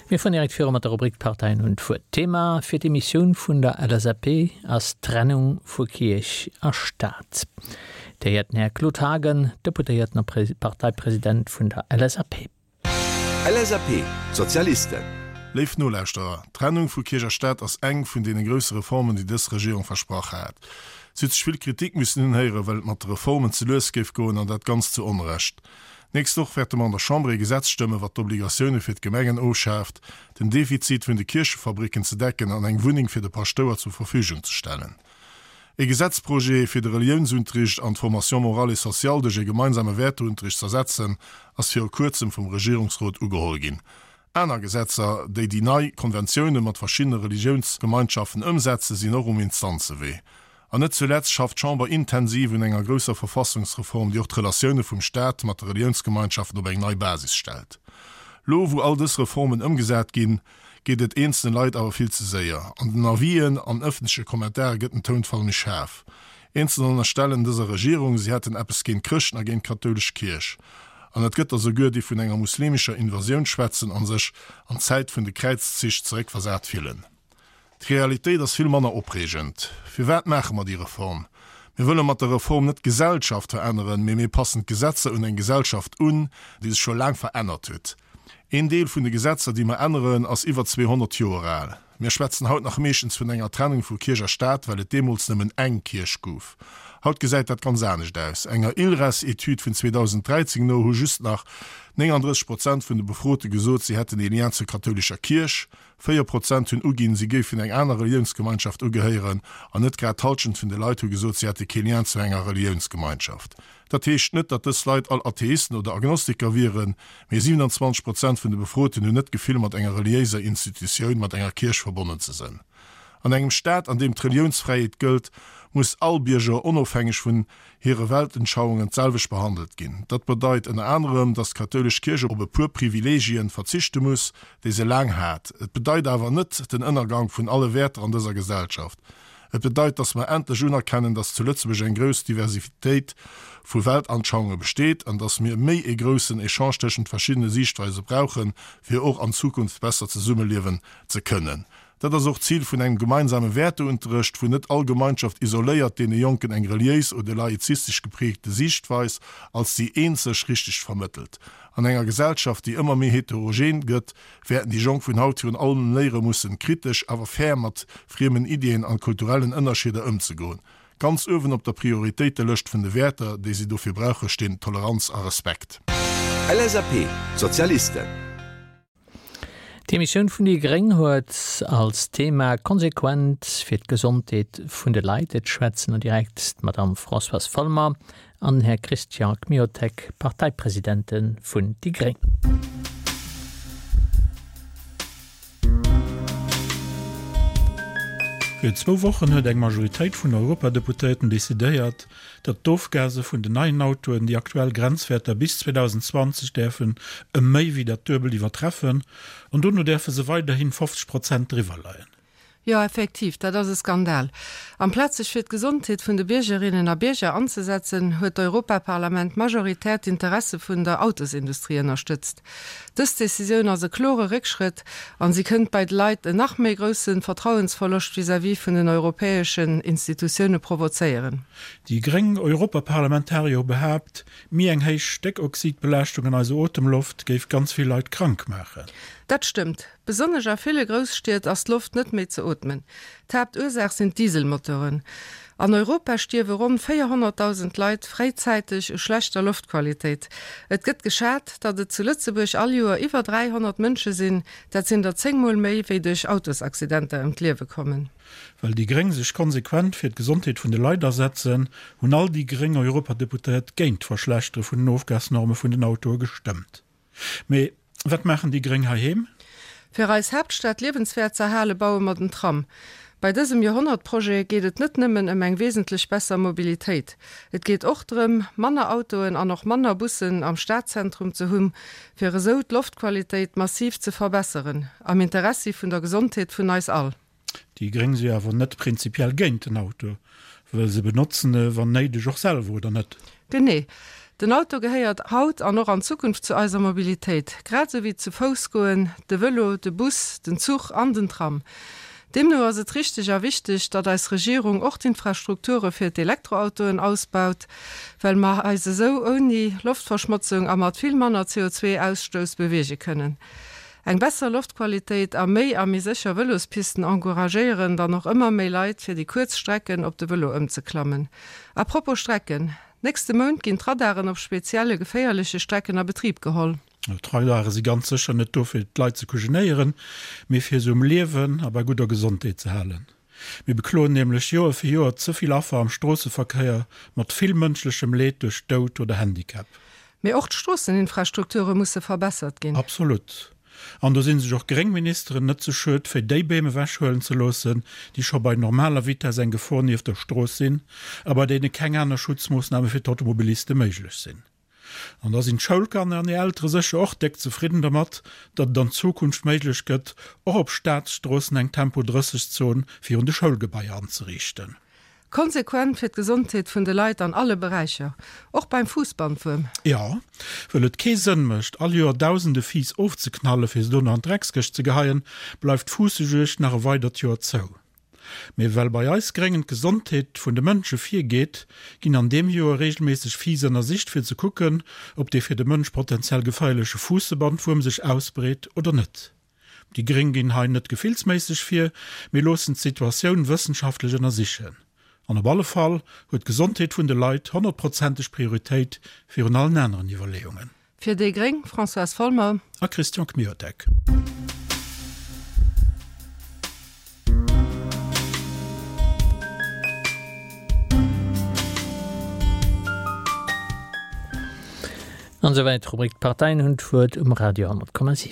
Mir fueren direkt viru mat der Rubrik D'Parteien hunn d'Wuert. D'Thema fir d'Emissioun vun der LSAP ass d'Trennung vu Kierch a Staat. Dir héiert den Här Claude Haagen, Deputéierten a Parteipresident vun der LSAP. LSAP, D'Sozialisten. Léif Nolauschterer, d'Trennung vu Kierch a Staat ass eng vun deene grousse Reformen, déi dës Regierung versprach hat. Si huet sech vill Kritik missen unhéieren, well et mat de Reformen ze lues géif goen, an dat ganz zu Onrecht. D'nächst Woch wäerte mer an der Chamber ee Gesetz stëmmen, wat d'Obligatioune fir d'Gemengen ofschaaft, den Defizit vun de Kierchefabricken ze decken an eng Wunneng fir de Paschtouer zur Verfügung ze stellen. Ee Gesetzprojet, fir de Reliounsunterricht an d'Formation morale et sociale duerch ee gemeinsame Wäerteunterricht z'ersetzen, ass viru kuerzem vum Regierungsrot ugeholl ginn. Aner Gesetzer, déi déi nei Konventioune mat verschiddene Religiounsgemeinschaften ëmsetzen, sinn och um Instanzewee. An net zuletzt schafft d'Chamber intensiv un enger grousser Verfassungsreform, déi och d'Relatioune vum Staat mat de Reliounsgemeinschaften op eng nei Basis stellt. Lo, wou all dës Reformen ëmgesat ginn, geet et eenzele Leit awer vill ze séier. An den Avisen an ëffentleche Kommentare gëtt den Tounfall méi schaarf. Eenzeler ënnerstellen dëser Regierung, si hätten eppes géint Chrëschten a géint d'kathoulesch Kierch. An et gëtt der souguer, déi vun enger muslimescher Invasioun schwätzen a sech an d'Zäit vun de Kräizzich zeréckversat fillen. D'Realitéit ass vill manner opreegend. Firwat maache mer déi Reform? Mir wëlle mat der Reform net d'Gesellschaft veränneren, mee mir passen d'Gesetzer un eng Gesellschaft un, déi sech scho laang verännert huet. Een Deel vun de Gesetzer, déi mer änneren, ass iwwer 200 Joer al. Mir schwätzen haut nach meeschtens vun enger Trennung vu Kierch a Staat, well et deemools nëmmen eng Kierch gouf. Haut gesäit dat ganz anescht aus. Enger ILRES-Etüd vun 2013 no hu just nach 39 Prozent vun de Befrote gesot, si hätten ee Lien zur kathoulescher Kierch. 4 Prozent hunn uginn, si géifen eng aner Reliounsgemeinschaft ugehéieren an net grad d'Hallschent vun de Leit hu gesot, si hätte kee Lien zu enger Reliounsgemeinschaft. Dat heescht net, datt dës Leit all Atheisten oder Agnostiker wieren, mee 27 Prozent vun de Befroten hunn net d'Gefill, mat enger reliéiser Institutioun, mat enger Kierch verbonnen ze sënn. An engem Staat, an deem d'Reliounsfräiheet gëllt, muss all Bierger, onofhängeg vun hire Weltenschauungen, d'selwecht behandelt ginn. Dat bedeit ënner anerem, datt d'kathoulesch Kierch op e puer Privilegien verzichte muss, déi se laang hat. Et bedeit awer net den Ënnergank vun alle Wäerter an dëser Gesellschaft. Et bedeit, datt mer endlech unerkennen, datt zu Lëtzebuerg eng grouss Diversitéit vu Weltanschauunge besteet an datt mir méi ee groussen Echange tëschent verschiddene Siichtweise brauchen, fir och an Zukunft besser zesummeliewen ze kënnen. Dat ass och d'Zil vun engem gemeinsame Wäerteunterrecht, wou net all Gemeinschaft isoléiert deene Jonken eng reliéis oder laizistesch geprägte Siichtweis als déi eenzeg richteg vermëttelt. An enger Gesellschaft, déi ëmmer méi heterogen gëtt, wäerten déi Jonk vun haut virun allem léiere mussen, kritesch awer fair mat friemen Iddien an kulturellen Ënnerscheeder ëmzegoen. Ganz uewen op der Prioritéitelëscht vun de Wäerter, déi si dofir brauche, stinn Toleranz a Respekt. LSAP, D'Sozialisten. D'Emissioun vun déi gréng huet als Thema Konsequent fir d'Gesondheet vun de Leit. Et schwätzen no direkt d'Madame Françoise Folmer an den Här Christian Kmiotek, Parteipresidente vun déi gréng. Virun zwou Wochen huet eng Majoritéit vun Europadeputéierten decidéiert, datt d'Ofgase vun den neien Autoen déi aktuell Grenzwäerter bis 2020 däerfen ëm méi wéi dat Duebelt iwwertreffen an dono däerfe se weiderhin 50 Prozent driwwer leien. Jo, effektiv, dat ass e Skandal. Amplaz sech fir d'Gesondheet vun de Biergerinnen a Bierger anzesetzen, huet d'Europaparlament majoritär d'Interesse vun der Autosindustrie ënnerstëtzt. Dës Decisioun ass e klore Réckschrëtt an si kënnt bei de Leit en nach méi grousse Vertrauensverloscht vis-à-vis vun den europäeschen Institutioune provozéieren. Déi gréng Europaparlamentarier hu behaapt, méi eng héich Stéckoxidbelaaschtung an eiser Otemloft géif ganz vill Leit krank maachen. Dat stëmmt. Besonnesch a ville Grousstied ass d'Loft net méi ze ootmen. D'Haaptursaach sinn d'Dieselmotoren. An Europa stierwe ronn 400.000 Leit fréizäiteg u schlechter Loftqualitéit. Et gëtt geschat, datt et zu Lëtzebuerg all Joer iwwer 300 Mënsche sinn, dat sinn der 10 Mol méi, wéi duerch Autosaccidenter ëm d'Liewe kommen. Well déi gréng sech konsequent fir d'Gesondheet vun de Leit asetzen, hunn all déi gréng Europadeputéiert géint d'Verschlechtere vun den Ofgasnorme vun den Autoe gestëmmt. Mee wat maachen déi Gréng heiheem? Fir eis Haaptstad liewenswäert z'erhale baue mer den Tram. Bei dësem Joerhonnertprojet geet et net nëmmen ëm eng wesentlech besser Mobilitéit. Et geet och drëm, manner Autoen an och manner Bussen am Stadzentrum ze hunn, fir esou d'Loftqualitéit massiv ze verbesseren, am Interessi vun der Gesondheet vun eis all. Déi Gréng si awer net prinzipiell géint den Auto, well se benotzen e wann néideg och selwer, oder net? Genee. Den Auto gehéiert haut an och an Zukunft zu eiser Mobilitéit, grad esou wéi zu Fouss goen, de Vëlo, de Bus, den Zuch an den Tram. Deemno ass et richteg a wichteg, datt eis Regierung och d'Infrastrukture fir d'Elektroautoen ausbaut, well mer eis esou ouni Loftverschmotzung a mat vill manner CO2-Ausstouss beweege kënnen. Eng besser Loftqualitéit a méi a méi sécher Vëlospisten encouragéieren dann och ëmmer méi Leit, fir déi kuerz Strecken op de Vëlo ëmzeklammen. A propos Strecken, Nächste Mount ginn d'Radaren op spezielle geféierleche Strecken a Betrib geholl. D'Radare si ganz sécher net do fir d'Leit ze kujenéieren, mee fir se um Liewen a bei gudder Gesondheet ze halen. Mir bekloen nämlech Joer fir Joer ze vill Affer am Stroosseverkéier mat vill mënschlechem Leed duerch Doud oder Handicap. Mee och d'Stroosseninfrastrukture musse verbessert ginn. Absolut. An do si sech och gréng Ministeren net ze schued, fir déi Beem ewechhuelen ze loossen, déi scho bei normaler Vitess eng Gefor nieft der Strooss sinn a bei deene keng aner Schutzmoossname fir d'Automobiliste méiglech sinn. An da sinn d'Schoulkanner an hir Eltere sécher och déck zefridden dermat, datt et an Zukunft méiglech gëtt, och op Staatsstroossen eng Tempo 30 Zon virun de Schoulgebaier anzeriichten. Konsequent fir d'Gesondheet vun de Leit an alle Beräicher, och beim Fuussbandwuerm. Jo, wëll et kee Sënn mécht, all Joer dausende Fiiss ofzeknalle fir se dono an d'Dreckskëscht ze geheien, bleift d'Fuussejuegd nach e weidert Joer zou. Mee well bei eis Gréngen d'Gesondheet vun de Mënsche virgeet, ginn an deem Joer reegelméisseg Fiiss ënnersicht fir ze kucken, ob dee fir de Mënsch potenziell geféierleche Fuussebandwuerm sech ausbreet oder net. Déi Gréng ginn hei net gefillsméisseg vir, mee loossen d'Situatioun wëssenschaftlech ënnersichen. An op alle Fall huet d'Gesondheet vun de Leit honnertprozenteg Prioritéit virun allen aneren Iwwerleeungen. Fir déi gréng, Françoise Folmer. A Christian Kmiotek. An esouwäit d'Rubrik D'Parteien hunn d'Wuert um Radio 10,7.